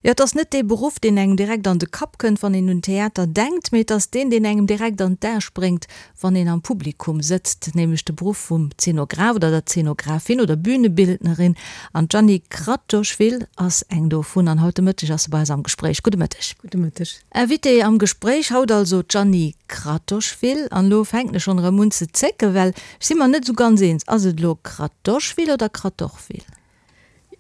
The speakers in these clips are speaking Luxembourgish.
Jo, et ass net dee Beruff, deen engem direkt an de Kapp kënnt, wann een un Theater denkt, mee et ass deen, deen engem direkt an d'Ae spréngt, wann een am Publikum sëtzt, nämlech de Beruff vum Zenograph oder der Zenographin oder Bühnebildnerin. An d'Jeanny Kratochvil ass eng dovun an haut de Mëtteg ass se bei eis am Gespréich. Gudde Mëtteg. Gudde Mëtteg. Invitée am Gespréich haut also d'Jeanny Kratochvil. An elo fänken ech schonn erëm un ze zécken, well ech si mer net esou ganz eens, Ass et elo Kratochvil oder Kratochvil?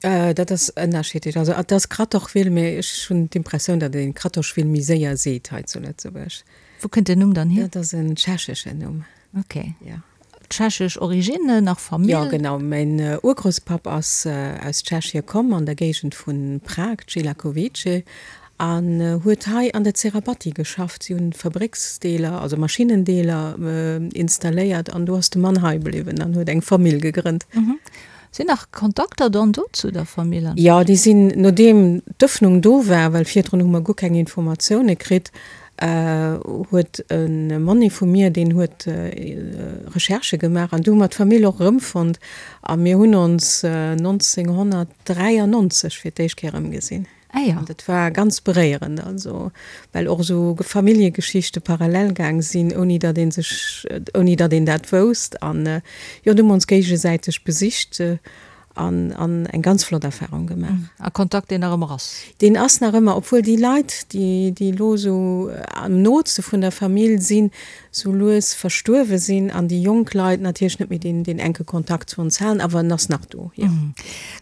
Dat ass ënnerschiddlech. Also et ass Kratochwil, mee ech hunn d'Impressioun, datt een Kratochwil méi séier seet hei zu Lëtzebuerg. Wou kënnt den Numm dann hier? Dat ass en tschecheschen Numm. Ok. Ja. Tschechesch Origine, nach Famill? Jo, genau. Mäin Urgrousspapp ass aus Tschechie komm, an der Géigend vu Prag, Celakovice, an huet hei an der Zerabatti geschafft. Si hunn Fabrécksdeeler, also Maschinnendeeler installéiert an do ass de Mann hei bliwwen an huet eng Famill gegrënnt. Sinn nach Kontakter dann do zu der Famill? Jo, déi sinn, nodeem d'Ëffnung do war, well virdrun hu mer guer keng Informatioune kritt, huet e Monni vu mir, deen huet Recherchë gemaach an du hu mer d'Famill och erëmfonnt a mir hunn ons 1993 fir d'éischt Kéier erëmgesinn. Ah jo. An dat war ganz beréierend, also well och esou Familljegeschichte parallel gaang sinn, ouni datt ee sech, ouni datt een dat wousst. An jo, du hu mer ons géigesäiteg besicht an an eng ganz flott Erfarung gemaach. A Kontakt, deen nach ëmmer ass? Deen ass nach ëmmer, obwuel déi Leit, déi déi elo esou am nootste vun der Famill sinn, sou lues verstuerwe sinn an déi jonk Leit natierlech net méi deen deen enke Kontakt zu ons halen, awer en ass nach do, jo.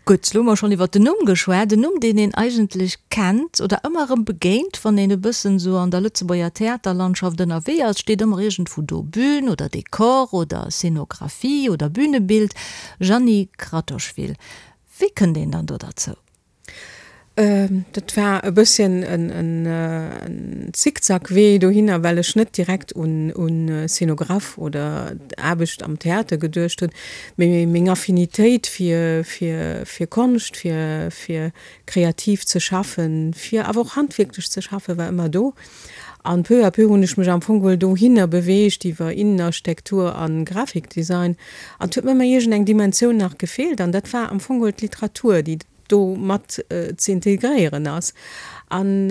Gutt, elo hu mer schonn iwwert den Numm geschwat, en Numm, deen een eigentlech kennt oder ëmmer erëm begéint, wann een e bëssen esou an der Lëtzebuerger Theaterlandschaft ënnerwee ass, steet ëmmer iergendwou do Bühn oder Dekor oder Scénographie oder Bühnebild, Jeanny Kratochvil. Wéi kënnt een dann do derzou? Dat war e bësschen en Zickzackwee dohinner, well ech net direkt un Szenograph oder Aarbecht am Theater geduecht hunn, mee meng Affinitéit fir Konscht, fir kreativ ze schaffen, fir awer och handwierklech ze schaffen, war ëmmer do. An peu à peu hunn ech mech am Fong geholl dohinner beweegt iwwer Innenarchitektur a Grafikdesign. An et huet mir ëmmer iergend eng Dimensioun nach gefeelt an dat war am Fong geholl d'Literatur, déi do mat ze integréieren ass. An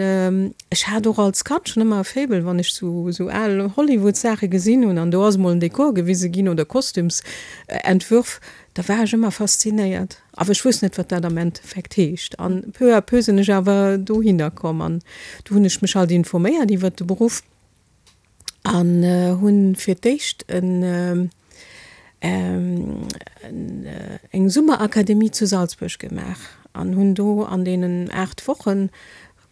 ech hat och als Kand schonn ëmmer e Faible, wann ech sou sou al Hollywood-Saache gesinn hunn an do ass emol en Dekor gewise ginn oder Kostümsentwürf, da war ech ëmmer faszinéiert. Awer ech wousst net, wat dat am Endeffekt heescht. An peu à peu sinn ech awer dohinner komm an du hunn ech mech halt informéiert iwwert de Beruff. An hunn fir d'éischt en eng Summerakademie zu Salzburg gemaach an hunn do an deenen 8 Wochen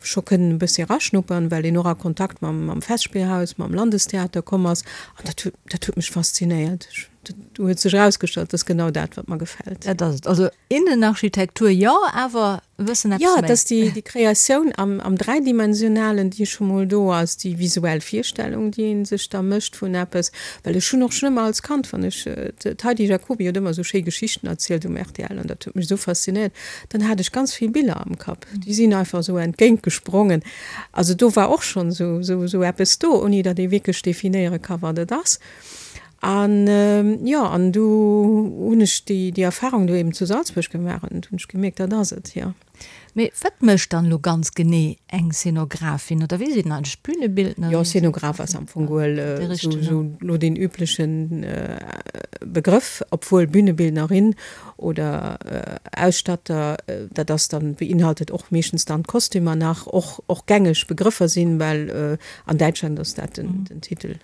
scho kënnen e bëssi eraschnuppern, well een och a Kontakt mam mam Festspielhaus, mam Landestheater komm ass. An dat huet dat huet mech faszinéiert. Dat huet sech erausgestallt, dat ass genau dat, wat mer gefält. Dat ass et. Also Innenarchitektur jo, awer e bëssen eppes méi. Jo, et ass déi déi Kreatioun am am Dräidimensionalen, déi scho mol do ass, déi visuell Virstellung, déi ee sech da mécht vun eppes. Well ech hunn och schonn ëmmer als Kand, wann ech, d'Heidi Jacoby huet ëmmer esou schéi Geschichten erzielt um rtl an dat huet mech esou faszinéiert, dann hat ech ganz vill Biller am Kapp, déi sinn einfach esou entgéint gesprongen. Also do war och schonn esou esou esou eppes do, ouni datt ee wierklech definéiere ka wat et ass. An jo, an du hunn ech déi, déi Erfahrung do eben zu Salzburg gemaach an du hunn ech gemierkt, dat ass et, jo. Mee wat mécht dann elo ganz genee eng Szenografin oder wéi seet een eigentlech, Bühnebildnerin? Jo, Szenograf ass am Fong geholl esou elo deen üblechen Begrëff, obwuel Bühnebildnerin oder Ausstatter, dat ass dann, beinhaltet och meeschtens dann d'Kostümer nach, och, och gängeg Begrëffer sinn, well an Däitschland ass dat den, den Titel.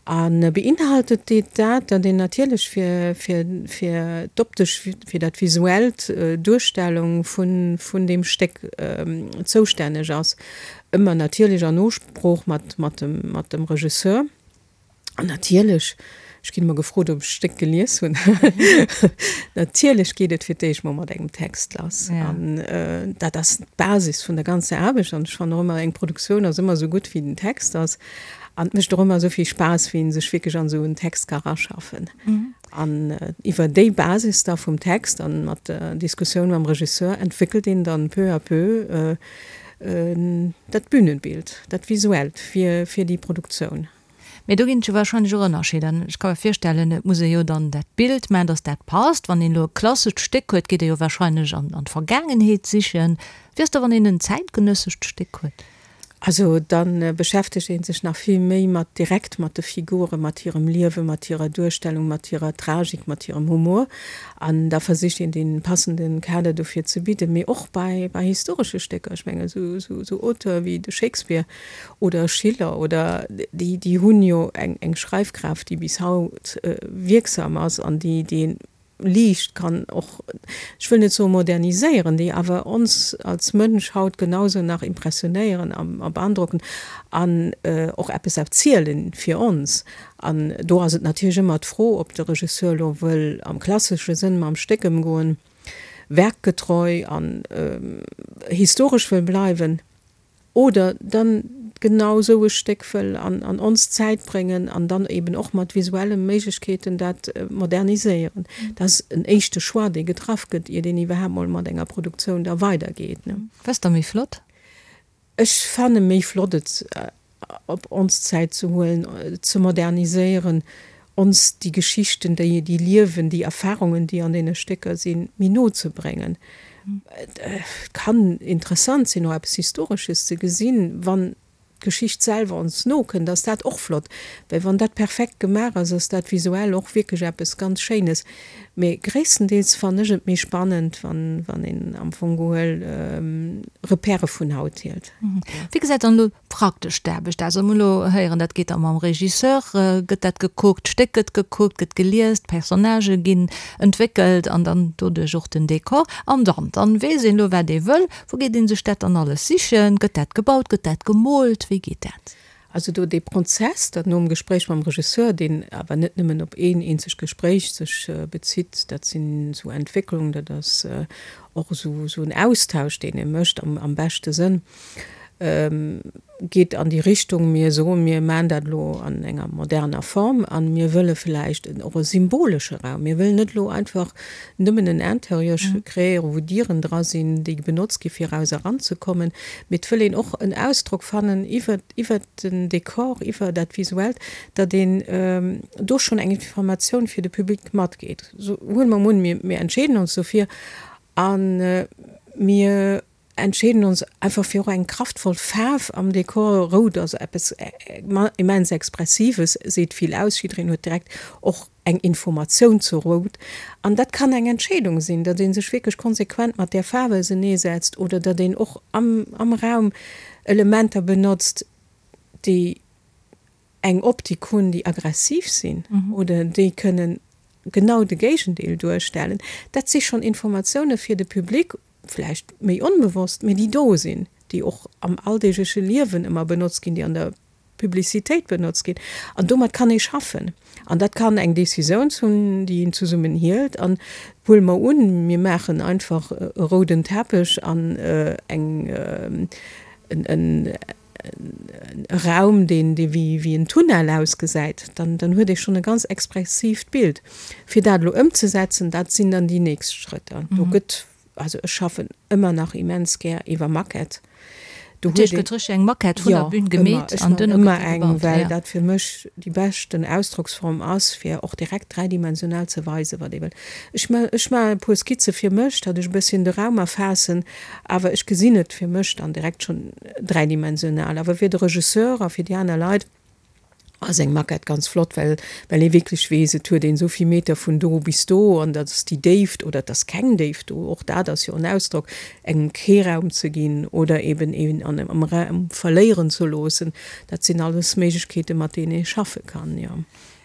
A beinhaltet deet dat, datt een natierlech fir, fir, fir d'optesch, fir dat visuellt Duerstellung vun, vun deem Stéck zoustänneg ass, ëmmer natierlech an Nosprooch mat, mat dem, mat dem Regisseur. An natierlech, ech ginn ëmmer gefrot, ob ech d'Stéck gelies hunn, natierlech geet et fir d'éischt mol mat engem Text lass. An dat ass d'Basis vun der ganzer Aarbecht. An ech fannen och ëmmer, eng Produktioun ass ëmmer esou gutt, wéi den Text ass. An et mécht och ëmmer esou vill Spaass, wéi een sech wierklech an esou en Text ka raschaffen. An iwwer déi Basis da vum Text an mat der Diskussioun mam Regisseur entwéckelt een dann peu à peu dat Bühnenbild, dat Visuellt fir, fir déi Produktioun. Mee do ginn et jo warscheinlech och Ënnerscheeder. Ech ka mer virstellen, et muss ee jo dann dat Bild maachen, datt dat passt. Wann een elo e klassescht Stéck huet, geet ee jo warscheinlech an d'Vergaangenheet sichen. Wéi ass da, wann een en zäitgenëssescht Stéck huet? Also da beschäftegt ee sech nach vill méi mat direkt mat de Figuren, mat hirem Liewen, mat hirer Duerstellung, mat hirer Tragik, mat hirem Humor. An da versicht een dee passende Kader dofir ze bidden. Mee och bei historesche Stécker, ech mengen esou Auteure wéi de Shakespeare oder Schiller oder déi, déi hunn jo eng Schreifkraaft, déi bis haut wierksam ass an déi déi liicht kann och, ech wëll net soe moderniséieren, déi awer ons als Mënsch haut genausou nach impressionéieren a beandrocken an och eppes erzielen fir ons. An do ass et natierlech ëmmer d'Fro, ob de Regisseur elo wëll am klassesche Sënn mam Stéck ëmgoen, werkgetreu an historesch wëll bleiwen, Oder dann genau esou e Stéck wëll an ons Zäit bréngen an dann eben och mat visuelle Méiglechkeeten dat moderniséieren. Dat ass en éischte Choix, dee getraff gëtt, iert een iwwerhaapt mol mat enger Produktioun da weidergeet. Wat ass da méi flott? Ech fanne méi flott, et op ons Zäit ze huelen, ze moderniséieren, ons déi Geschichten, déi déi liewen, déi Erfahrungen, déi an deene Stécker sinn, méi no ze bréngen. Et kann interessant sinn, och eppes Historesches ze gesinn, wann d'Geschicht selwer ons no kënnt, ass dat och flott, well wann dat perfekt gemaach ass, ass dat visuell och wierklech eppes ganz Schéines. Mee gréisstendeels fannen ech et méi spannend, wann een am Fong gehuel Repèrë vun haut hielt. Wéi gesäit dann elo praktesch d'Aarbecht aus? Also mir hunn elo héieren, dat geet da mam Regisseur, gëtt dat gekuckt, d'Stéck gëtt gekuckt, gëtt gelies, d'Personnagë ginn entwéckelt an dann doduerch och den Dekor. An dann, dann weess een elo wat ee wëll. Wou geet ee sech dat dann alles sichen? Gëtt dat gebaut, gëtt dat gemoolt, wéi geet dat? Also do dee Prozess, dat nom Gespréich mam Regisseur, deen awer net nëmmen op een eenzegt Gespréich sech bezitt, dat sinn esou Entwécklungen, dat ass och esou en Austausch, deen ee mécht am beschte Sënn, geet an déi Richtung, mir soen, mir maachen dat elo an enger moderner Form a mir wëlle vläicht och e symbolesche Raum. Mir wëllen net elo einfach nëmmen en Interieur kreéieren, wou Dieren dra sinn, déi benotzt gi fir eraus eranzekommen, mee et wëll een och en Ausdrock fannen iwwer iwwer den Dekor, iwwer dat Visuellt, datt een do schonn eng Informatioun fir de Public matgeet. Huele mer emol un, mir entscheeden ons dofir a mir entscheeden ons einfach fir och eng kraftvoll Faarf am Dekor. Rout ass eppes immens Expressives, seet vill aus, jiddereen huet direkt och eng Informatioun zu Rout. An dat kann eng Entscheedung sinn, datt ee sech wierklech konsequent mat där Faarf auseneesetzt oder datt een och am Raum Elementer benotzt, déi eng Optik hunn, déi aggressiv sinn oder déi kënnen genau de Géigendeel duerstellen. Dat si schonn Informatioune fir de Public, vläicht méi onbewosst, mee déi do sinn, déi och am alldeegleche Liewen ëmmer benotzt ginn, déi an der Publicitéit benotzt ginn. An domat kann ee schaffen. An dat kann eng Decisioun sinn, déi een zesummen hielt. An huele mer un, mir maachen einfach e rouden Teppech an eng, en, e Raum, deen dee wéi en Tunnel ausgesäit, dann dann huet ee schonn e ganz expressiivt Bild. Fir dat elo ëmzesetzen, dat sinn dann déi nächst Schrëtter. Do gëtt, also ech schaffen ëmmer nach immens gär iwwer Maquette. Do huet een. Gëtt richteg eng Maquette vun der Bühn gemeet an duerno gëtt déi gebaut? Ech maachen ëmmer eng, well dat fir mech déi beschten Ausdrocksform ass, fir och direkt dräidimensional ze weisen, wat ee wëll. Ech ech maachen e puer Skizze fir mech, datt ech e bësschen de Raum erfaassen, awer ech gesinn et fir mech dann direkt schonn dräidimensional. Awer fir de Regisseur a fir déi aner Leit ass eng Maquette ganz flott, well well ee wierklech weess, et huet een esou vill Meter vun do bis do an dat ass déi Déift oder et ass keng Déift do, och dat ass jo en Ausdrock, engem kee Raum ze ginn oder eben een an am Raum verléieren ze loossen. Dat sinn alles Méiglechkeeten, mat deenen ee schaffe kann, jo.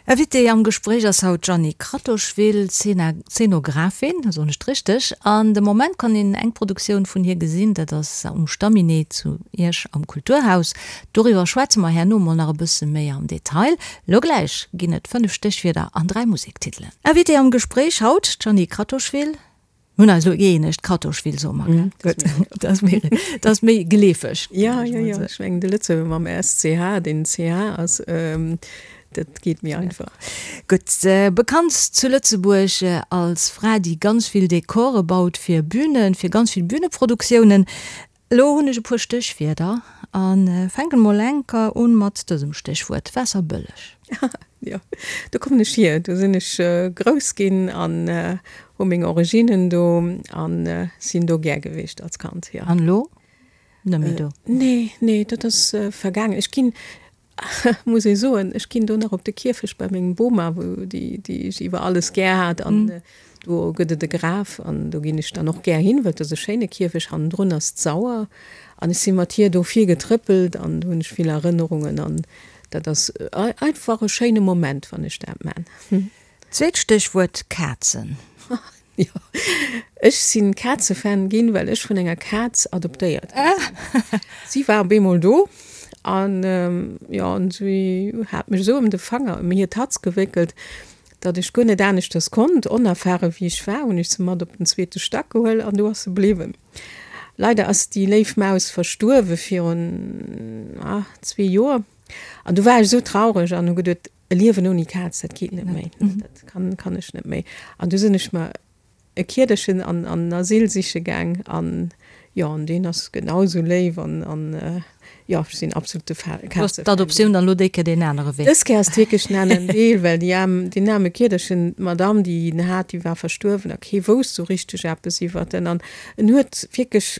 Invitée am Gespréich ass haut d'Jeanny Kratochvil, Zeenographin, soen ech et richteg? An de Moment kann een eng Produktioun vun hir gesinn, dat ass um Stamminet zu Esch am Kulturhaus. Doriwwer schwätze mer herno mol nach e bësse méi am Detail. Lo gläich ginn et 5 Stéchwierder an 3 Musektitelen. Invitée am Gespréich haut, d'Jeanny Kratochvil. Mir hunn eis elo gëeenegt, Kratochvil soe mer, gell? Gutt, dat ass méi, dat ass méi geleefeg. Ja, jo, jo, ech mengen de Lëtzebuerger mam SCH, deen CH ass, dat geet méi einfach. Gutt, bekannt zu Lëtzebuerg als Fra, déi ganz vill Dekore baut fir Bünen, fir ganz vill Bühneproduktiounen. Elo hunn ech e puer Stéchwierder a fänken mol enker un mat dësem Stéchwuert, Waasserbëlleg. Jo, do kommen ech hier. Do sinn ech grouss ginn an hu meng Originnen do an sinn do gär gewiescht als Kand, jo. An elo? Net méi do? Nee, nee, dat ass vergaangen. Ech ginn, muss ee soen, ech ginn do nach op de Kierfecht bei mengem Boma, wou déi, déi ech iwwer alles gär hat an do gëtt et e Graf an do ginn ech dann och gär hin, well et ass e schéine Kierfecht. Hannendrun ass d'Sauer an ech si mat hir do vill getrëppelt an do hunn ech vill Erënnerungen an dat ass einfach e schéine Moment, wann ech dat man. Zweet Stéchwuert, Kazen. Jo, ech sinn Kazefan ginn, well ech vun enger Kaz adoptéiert gi sinn. Si war op eemol do an jo, an si hat mech esou ëm de Fanger, ëm hir Tatz gewéckelt, datt ech guer net aneschters konnt. Onerfare wéi ech war, hunn ech se mat op den zweete Stack gehuel an do ass se bliwwen. Leider ass déi léif Maus verstuerwe virun zwee Joer an du war ech esou traureg an hu geduet, E Liewen ouni Kaz, dat geet net méi, dat kann, kann ech net méi. An du sinn ech mer e Kiederchen an an Asyl siche gaang an jo, an deen ass genau esou léif an an jo, ech sinn absolute Fa Du hues d'Adoptioun dann elo déi Kéier deen anere Wee. Dës Kéier ass et wierklech den aneren Deel, well déi aarm, deen aarme Kiederchen, d'Madame, déi en hat, déi war verstuerwen a kee wousst esou richteg eppes iwwert en an en huet wierklech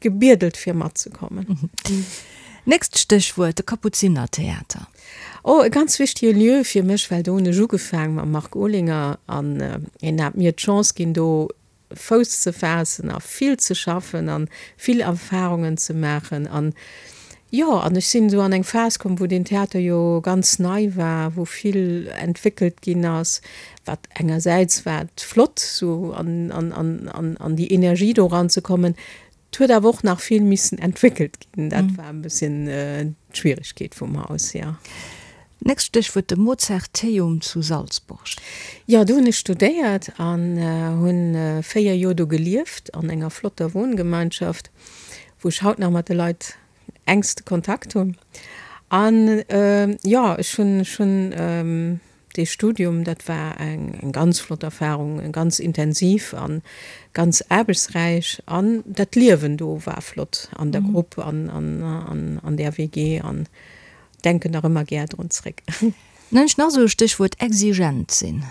Gebiedelt fir matzekommen. Nächst Stéchwuert, de Kapuzinertheater. Oh, e ganz wichtige Lieu fir mech, well do hunn ech ugefaang mam Marc Olinger an hien hat mir d'Chance ginn, do Fouss ze faassen a vill ze schaffen an vill Erfahrungen ze maachen an jo, an ech sinn esou an eng Phas komm, wou deen Theater jo ganz nei war, wou vill entwéckelt ginn ass, wat engersäits war et flott sou an an an an an déi Energie do eranzekommen, et huet awer och nach vill missen entwéckelt ginn, dat war e bësschen d'Schwieregkeet vum Haus, jo. Nächst Stéchwuert, de Mozarteum zu Salzburg. Jo, do hunn ech studéiert an hunn 4 Joer do gelieft an enger flotter Wohngemeinschaft, wou ech haut nach mat de Leit engste Kontakt hunn. An jo, ech hunn ech hunn Dee Studium, dat war eng ganz flott Erfahrung, ganz intensiv a ganz aarbechtsräich. An dat Liewen do war flott an der Grupp an an där WG an denken nach ëmmer gär drun zréck. Dann hunn ech nach esou e Stéchwuert, exigent sinn.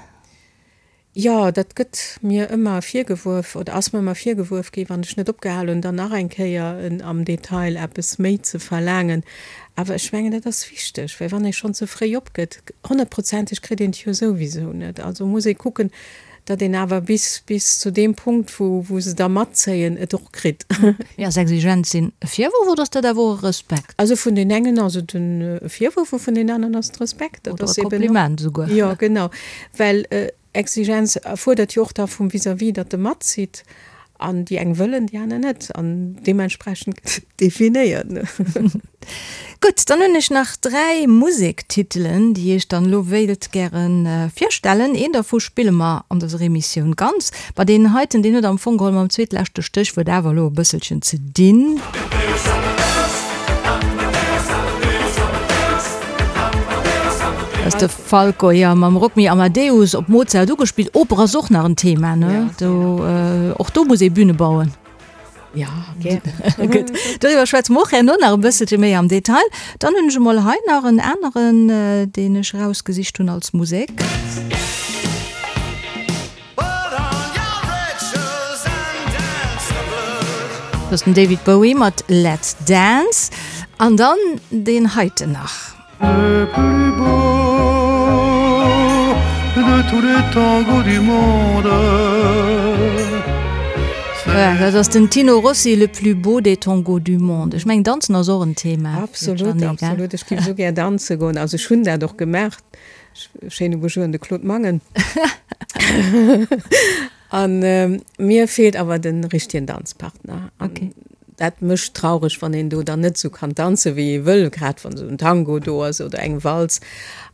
Jo, dat gëtt mir ëmmer virgewuerf oder ass mir ëmmer virgewuerf ginn, wann ech net opgehal hunn, dann nach eng Kéier am Detail eppes méi ze verlaangen. Awer ech mengen, dat ass wichteg, well wann ee schonn ze fréi opgëtt, honnertprozenteg kritt een et jo souwisou net. Also muss ee kucken, datt een awer bis bis zu deem Punkt, wou wou se da matzéien, et och kritt. Mee ass exigent sinn e Virwurf oder ass dat awer och e Respekt? Also vun den engen ass et e Virwurf a vun den aneren ass et Respekt. Dat ass eben och. Oder e Kompliment esouguer. Jo, genau. Well Exigenz erfuerdert jo och da vum Vis-à-vis, datt e matzitt. An déi eng wëllen, déi aner net. An deementsprechend gëtt et definéiert. Gutt, dann hunn ech nach 3 Musektitelen, déi ech dann elo wéilt gäre virstellen. Een dervu spille mer an dëser Emissioun ganz. Ma deen heiten, deen huet am Fong geholl mam zweetleschte Stéchwuert awer elo e bësselchen ze dinn. Dat ass de Falco, jo, mam Rock Me Amadeus op Mozart ugespillt. Oper ass och nach en Thema, ne? Do, och do muss ee Büne bauen. Ja, gär. Gutt, doriwwer schwätze mer och herno nach e bësselche méi am Detail. Dann hunn ech emol hei nach en aneren, deen ech erausgesicht hunn als Musek. Dat ass den David Bowie mat Let's Dance. An dann deen heiten nach. Le plus beau de tous les tangos du monde. Voilà, dat ass den Tino Rossi, Le plus beau des tangos du monde. Ech mengen, Danzen ass och en Thema. Absolut, absolut. Ech géif esou gär danze goen. Also ech hunn dat och gemaach. Schéine Bonjour un de Claude Mangen. An mir feelt awer de richtegen Danzpartner. An dat mécht traureg, wann een do dann net esou kann danzen, wéi ee wëll, grad wann esou en Tango do ass oder eng Walz.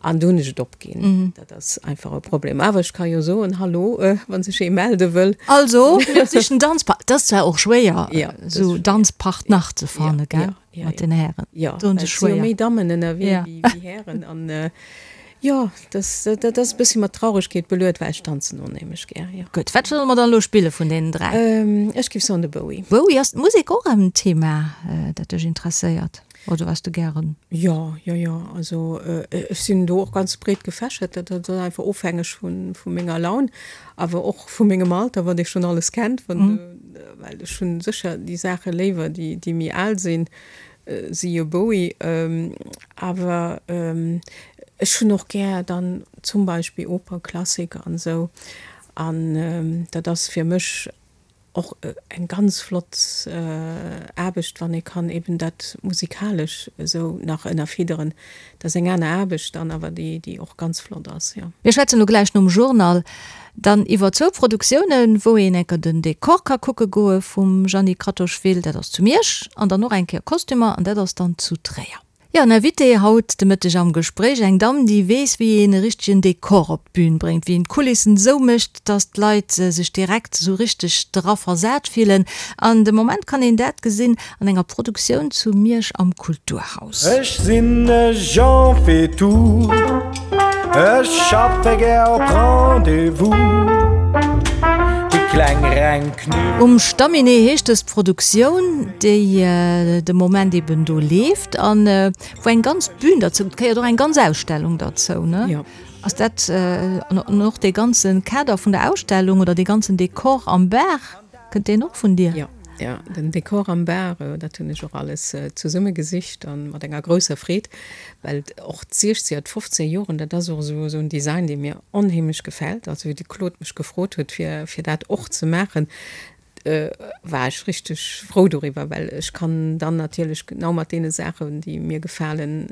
An do hunn ech et opginn. Dat ass einfach e Problem. Awer ech ka jo soen, Hallo, wa sech ee melde wëll. Also, mir sichen Danzpartner. Dat ass zwar och schwéier, esou Danzpartner ze fanne, gell, mat den Hären. Jo, well et si jo méi Dammen ënnerwee wéi Hären. An. Jo, dat ass e bëssi mat Trauregkeet beluet, well ech tanzen onheemlech gär, jo. Gutt, wat solle mer dann elo spille vun deenen 3? Ech géif soen de Bowie. Bowie, ass d'Musek och en Thema, dat dech interesséiert oder wat s de gären? Jo, jo, jo, also ech sinn do och ganz breet gefächert, dat ass einfach ofhängeg vu menger Laun, awer och vu mengem Alter, wat ee schonn alles kennt, well ech hunn sécher déi Saache léiwer, déi méi al sinn. Siehe Bowie, awer ech hunn och gär dann zum Beispill Oper, Klassik an esou an dat ass fir mech och eng ganz flott Aarbecht, wann ee kann eben dat musikalesch esou nach ënnerfidderen. Dat ass eng aner Aarbecht dann, awer déi déi och ganz flott ass, jo. Mir schwätzen elo gläich nom Journal Dann iwwer zwou Produktiounen, wou een enker den Dekor ka kucke goe vum Jeanny Kratochvil, dat ass zu Miersch, an dann och eng Kéier Kostümer, an dat ass dann zu Tréier. Jo, en Invité haut de Mëtteg am Gespréich, eng Damm, déi weess, wéi een e richtegen Dekor op d'Bün bréngt, wéi een d'Kulissen esou mécht, dass d'Leit sech direkt esou richteg dra versat fillen. An de Moment kann een dat gesinn an enger Produktioun zu Miersch am Kulturhaus. Ech sinn e Jean Faitout, ech schaffe gär op Rendez-vous. Déi kleng reng Knuet. Um Stamminet heescht dës Produktioun, déi de Moment eben do leeft an wou eng ganz Bühn derzou gehéiert, och eng ganz Ausstellung derzou, ne? Jo. Ass dat an och dee ganze Kader vun der Ausstellung oder dee ganzen Dekor am Bar? Kënnt deen och vun dir? Jo, jo, den Dekor am Bar, dat hunn ech och alles zesumme gesicht an mat enger grousser Freed, well och d'Siechzeger, d'Fofzeger Joren, dat ass och esou esou en Design, dee mir onheemlech gefält. Also wéi de Claude mech gefrot huet, fir fir dat och ze maachen, war ech richteg frou doriwwer, well ech kann dann natierlech genau mat deene Saachen, déi mir gefalen,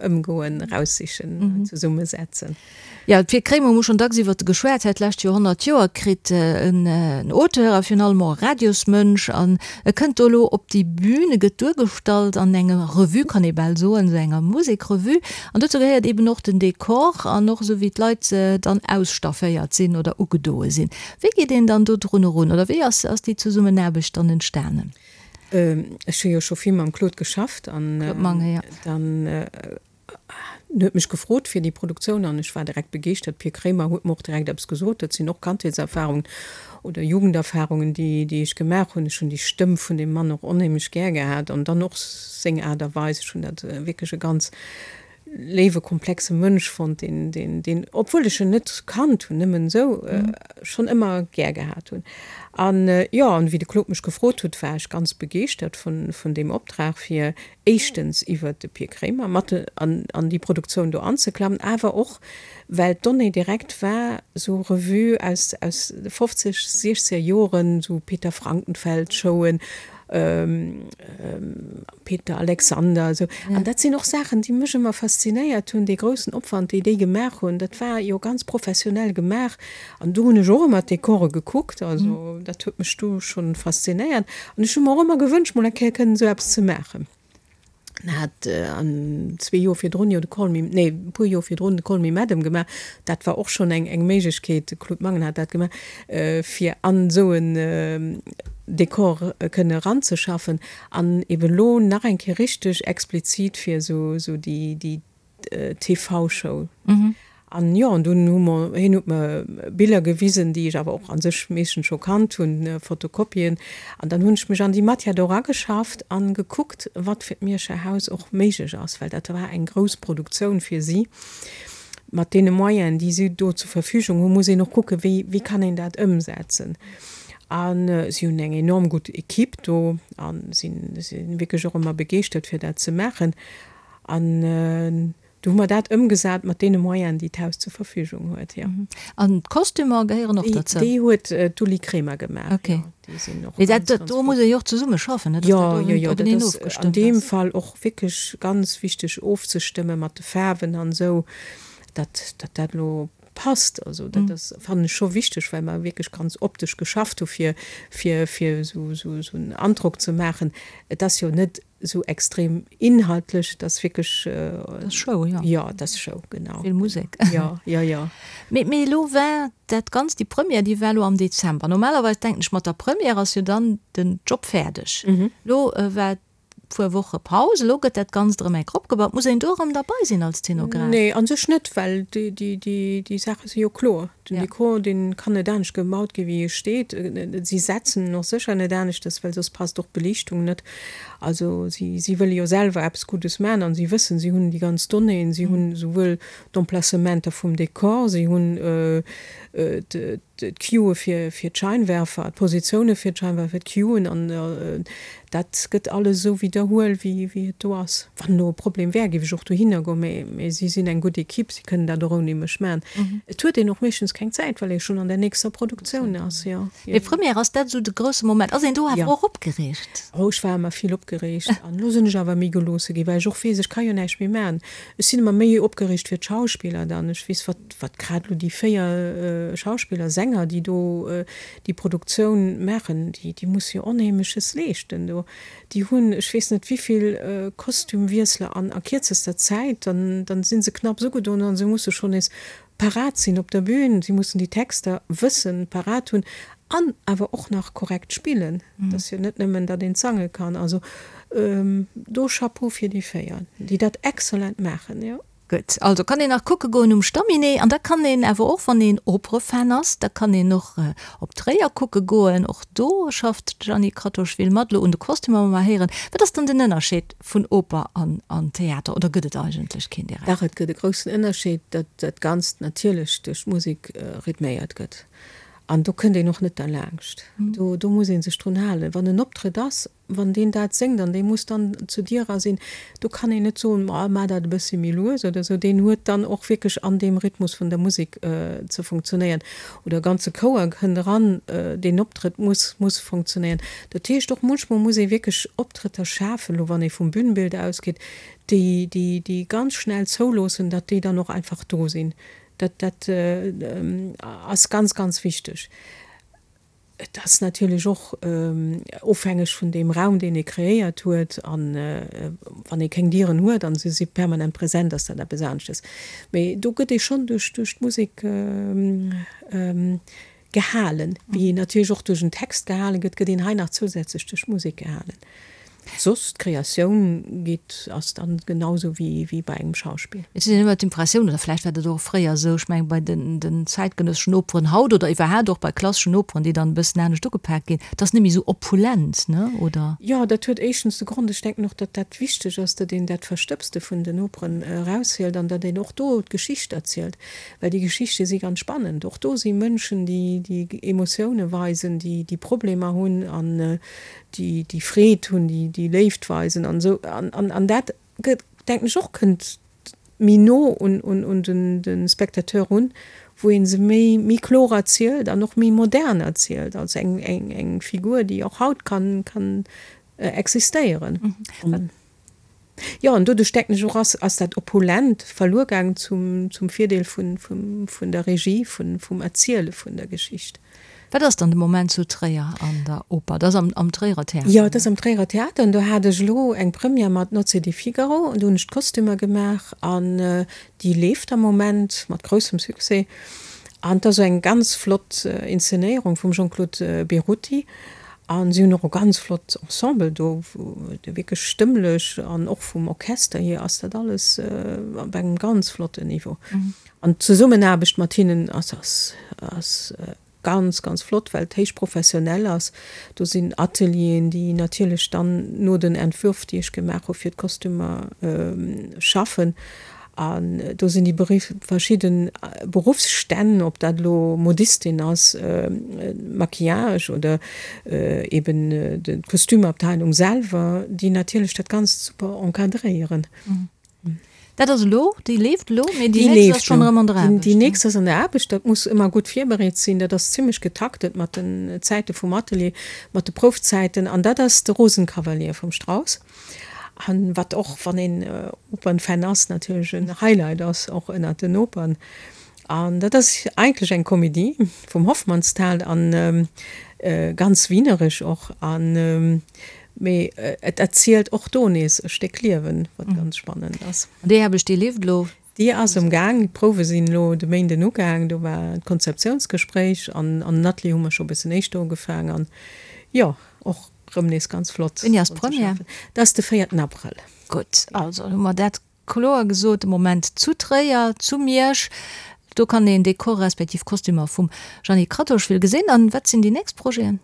ëmgoen, eraussichen, zesummesetzen. Jo, de Pir Kremer, hu schonn dacks iwwert e geschwat, hat d'lescht Joer 100 Joer kritt, en Auteur a virun allem och e Radiosmënsch. An e kënnt do elo op déi Bühn, e gëtt duergestallt an enger Revue, kann ee bal soen, esou enger Musekrevue. An dozou gehéiert eben och den Dekor an och esou wéi d'Leit dann ausstafféiert sinn oder ugedoe sinn. Wéi geet een dann do drun erun oder wéi ass déi Zesummenaarbecht dann entstanen? Ech hu jo scho vill mam Claude geschafft an dann En huet mech gefrot fir déi Produktioun an ech war direkt begeeschtert. Pir Kremer huet mer och direkt eppes gesot. Dat sinn och Kandheetserfarungen oder Jugenderfarungen, déi, déi ech gemaach hunn. Ech hunn déi Stëmm vun deem Mann och onheemlech gär gehat an dann och seng Aart a Weis. Ech hunn dat wierklech e ganz léiwe, komplexe Mënsch fonnt, deen, deen, deen, obwuel ech en net kannt hunn, nëmmen esou, schonn ëmmer gär gehat hunn. An jo, an wéi de Claude mech gefrot huet, war ech ganz begeeschtert vun, vun deem Optrag, fir éischtens iwwert de Pir Kremer mat an an déi Produktioun do anzeklammen, awer och well d'Donnée direkt war, sou Revue aus aus de 50, 60er Joren, sou Peter Frankenfeld Showen, Peter Alexander, esou. An dat sinn och Saachen, déi mech ëmmer faszinéiert hunn, dee groussen Opwand, déi déi gemaach hunn, dat war jo ganz professionell gemaach. An do hunn ech och ëmmer d'Dekore gekuckt, also dat huet mech du schonn faszinéiert. An ech hu mer och ëmmer gewënscht, mol eng Kéier kënnen esou eppes ze maachen. En hat an zwee Joer virdrun jo de Call me, nee, e puer Joer virdrun de Call me Madam gemaach. Dat war och schonn eng, eng Méiglechkeet, de Claude Mangen hat dat gemaach, fir an esou en Dekor kënne eranzeschaffen. An eben elo nach eng Kéier richteg explizit fir esou, esou déi, déi TV-Show. An jo, an dunn hu mer, hien huet mer Biller gewisen, déi ech awer och a sech meeschtens scho kannt hunn, Fotokopien. An dann hunn ech mech an déi Matière do erageschafft an gekuckt, wat fir d'Mierscher Haus och méiglech ass, well dat war eng grouss Produktioun fir si. Mat deene Moyenen, déi si do zur Verfügung hunn, muss een och kucken, wéi, wéi kann een dat ëmsetzen. A si hunn eng enorm gutt Equipe do a sinn, sinn wierklech och ëmmer begeeschtert, fir dat ze maachen. An du hu mer dat ëmgesat mat deene Moyenen, déi d'Haus zur Verfügung huet, jo. An d'Kostümer gehéieren och derzou? Déi huet d'Uli Kremer gemaach, jo. Déi sinn och ganz, ganz flott. Do muss ee jo och zesumme schaffen, ne? Jo, jo, jo, dat ass an deem Fall och wierklech ganz wichteg ofzestëmme mat de Faarwen an esou, datt dat elo passt. Also dat ass, fannen ech scho wichteg, well mer wierklech ganz optesch geschafft hu fir, fir, fir esou, esou en Androck ze maachen. Et ass jo net Esou extrem inhaltlech, et ass wierklech. Et ass Show, jo. Jo, et ass Show, genau. Vill Musek. Jo, jo, jo. Mee, mee elo war dat Ganzt, déi Première, déi war elo am Dezember. Normalerweis denken ech, mat der Première ass jo dann den Job fäerdeg. Elo war. puer Woche Paus. Elo gëtt dat Ganzt erëm enk opgebaut. Muss een do erëm derbei sinn als Zenograf? Nee, a sech net, well déi Saache si jo kloer. Den Dekor, dee kann net anescht gebaut gi wéi e steet. Si setzen en och sécher net aneschtes, well soss passt och d'Beliichtung net. Also si wëlle jo selwer eppes Guddes maachen an si wëssen, si hunn déi ganz Donnéeën, si hunn esouwuel d'Emplacementer vum Dekor, si hunn d'Cueë fir fir d'Scheinwerfer, d'Positioune fir d'Scheinwerfer, d'Cueën an dat gëtt alles esou widderhuel wéi wéi et do ass. Wann elo e Problem wär, géif ech och dohinner goen, mä mä si sinn eng gutt Equipe, si kënnen dat och ouni mech maachen. Et huet een och meeschtens keng Zäit, well ee schonn an der nächster Produktioun ass, jo. Mee Première, ass dat esou de grousse Moment? Ass een do awer och opgereegt? Oh, ech war ëmmer vill opgereegt an elo sinn ech awer méi geloosse ginn, well ech och weess, ech ka jo näischt méi maachen. Ech sinn ëmmer méi opgereegt fir d'Schauspiller dann. Ech weess, wat Wat grad elo déi 4 Schauspiller, Sänger, déi do déi Produktioun maachen, déi, déi musse jo Onheemleches leeschten do. Déi hunn ech weess net wivill Kostümwiessler an a kierzester Zäit. Dann, dann si se knapps ugedoen an se musse schonn nees parat sinn op der Bühn. Si mussen déi Texter wëssen, parat hunn an awer och nach korrekt spillen. Et ass jo net nëmmen, datt een sange kann. Also do Chapeau fir déi 4, déi dat exzellent maachen, jo. Gutt, also kann een nach kucke goen um Stamminet an da kann een awer och, wann een Operefan ass, da kann een och op Tréier kucke goen. Och do schafft d'Jeanny Kratochvil mat, elo un de Kostümer, wa mer héieren. Wat ass dann den Ënnerscheed vun Oper an Theater oder gëtt et eigentlech keen direkt? Dach, et gëtt e groussen Ënnerscheed, datt dat Ganzt natierlech duerch d'Musek rhythméiert gëtt an do kënnt een och net derlaanscht. Do do muss ee sech drun halen. Wann en Optrëtt ass, Wann deen dat séngt an dee muss dann zu dir era sinn, do kann een net soen, ma maach dat e bëssi méi lues oder esou. Deen huet dann och wierklech an deem Rhythmus vun der Musek ze funktionéieren. Oder e ganze Chouer kënnt eran, deen Optrëtt muss muss funktionéieren. Dat heescht och munchmol muss ee wierklech Optrëtter schafen, elo wann ee vum Bühnenbild ausgeet, déi déi déi ganz schnell zouloossen, datt déi dann och einfach do sinn. Dat dat ass ganz ganz wichteg. Et ass natierlech och ofhängeg vun deem Raum, deen ee kreéiert huet. A wann ee keng Dieren huet a se si permanent present, ass dat eppes aneschtes. Mee do gëtt ee schonn duerch d'Musek gehalen. Wéi een natierlech och duerch en Text gehale gëtt, gëtt een hei nach zousätzlech duerch d'Musek gehalen. Soss, d'Kreatioun geet, ass dann genau sou wéi wéi bei engem Schauspill. Et huet een ëmmer d'Impressioun, oder vläicht war dat och fréier esou, ech mengen bei den den zäitgenësseschen Operen haut oder iwwerhaapt och bei klasseschen Operen, déi dann e bëssen anescht ugepak ginn, et ass net méi esou opulent, ne, oder? Jo, dat huet éischtens de Grond, ech denken och, datt dat wichteg ass, datt een dat Verstëbste vun den Operen eraushielt an datt een och do d'Geschicht erzielt, well déi Geschichte si ganz spannend. Och do si Mënschen, déi déi Emotioune weisen, déi déi Problemer hunn an déi déi Freed hunn, déi déi Léift weisen an esou an an an dat gëtt, denken ech och, kënnt méi no un un un den de Spectateur run, wou ee se méi méi kloer erzielt an och méi modern erzielt als eng eng eng Figur, déi och haut kann kann existéieren. Jo, an doduerch denken ech och, ass, ass dat Opulent verluer gaangen zum, zum Virdeel vun, vum, vun der Regie, vun, vum Erziele vun der Geschicht. Wat ass dann de Moment zu Tréier an der Oper? Dat ass am, am Tréierer Theater? Jo, dat ass am Tréierer Theater. An do hat ech elo eng Première mat Nozze di Figaro. Do hunn ech d'Kostümer gemaach an déi leeft am Moment mat groussem Succès. An et ass esou eng ganz flott Inszenéierung vum Jean-Claude Berutti. A si hunn och e ganz flott Ensemble do, wou wierklech stëmmlech an och vum Orchester hier ass dat alles op engem ganz flotten Niveau. An d'Zesummenaarbecht mat hinnen ass ass ass ganz, ganz flott, well et héich professionell ass. Do sinn Atelieren, déi natierlech dann no den Entwürf, déi ech gemaach hu fir d'Kostümer, schaffen. An do sinn déi verschidde Beruffsstänn, ob dat elo Modistin ass, Maquillage oder eben d'Kostümabteilung selwer, déi natierlech dat Ganzt super encadréieren. Dat ass elo, déi leeft elo, mee déi nächst ass schonn erëm an der Aarbecht. Déi nächst ass an der Aarbecht. Dat muss ëmmer gutt virbereet sinn. Dat ass zimmlech getaktet mat den Zäite vum Atelier, mat de Proufzäiten. An dat ass de Rosenkavalier vum Strauss. An wat och, wann een Opernfan ass, natierlech en Highlight ass, och ënnert den Opern. An dat ass eigentlech eng Komedie vum Hofmannsthal an ganz wieneresch och. An mee et erzielt och do nees e Stéck Liewen, wat ganz spannend ass. An déi Aarbecht, déi leeft elo? Déi ass am Gaang. D'Prouwe sinn elo de Méinden ugaang. Do war d'Konzeptiounsgespréich an an den Atelier hu mer scho e bëssen éischter ugefaang. An jo, och. rëm nees ganz flott. Wéini ass d'Première? Dat ass de véierten Abrëll. Gutt, also hu mer dat kloer gesot. De Moment zu Tréier, zu Miersch. Do kann een Dekore respektiv Kostümer vum Jeanny Kratochvil gesinn. An wat sinn déi nächst Projeten?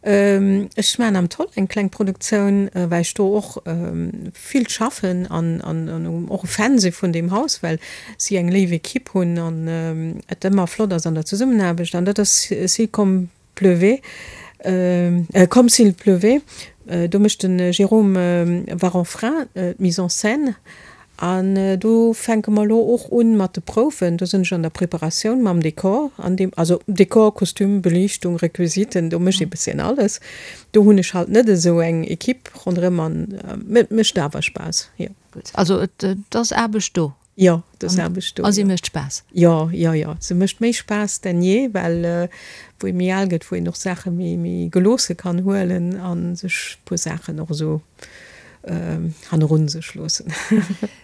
Ech maachen am Toll eng kleng Produktioun, well ech do och vill schaffen an och e Fan si vun deem Haus, well si eng léif Equipe hunn an et ëmmer flott ass an der Zesummenaarbecht. An dat ass Si comme pleuvait, Comme s'il pleuvait. Do mécht de Jérôme Varanfrain d'Mise en scène An do fänke mer elo och un mat de Prouwen. Do sinn ech an der Preparatioun mam Dekor an deem, also Dekor, Kostüm, Beliichtung, Requisiten, do mécht ee bësschen alles. Do hunn ech halt net esou eng Equipe ronderëm an et mécht awer Spaass, jo. Gutt, also et ass Aarbecht do. Jo, et ass Aarbecht do, jo. A si mécht Spaass? Jo, jo, jo, se mécht méi Spaass denn je, well wou ee méi al gëtt, wou een och Saache méi, méi geloosse kann huelen a sech e puer Saachen och esou hannerun sech loossen.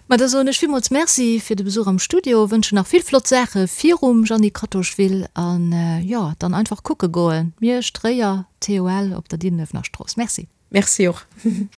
Ma da soen ech villmools Merci fir de Besuch am Studio, wënschen nach vill flott Saache virum Jeanny Kratochvil an jo, dann einfach kucke goen, Miersch, Tréier, TOL op der Diddenuewener Strooss. Merci. Merci och.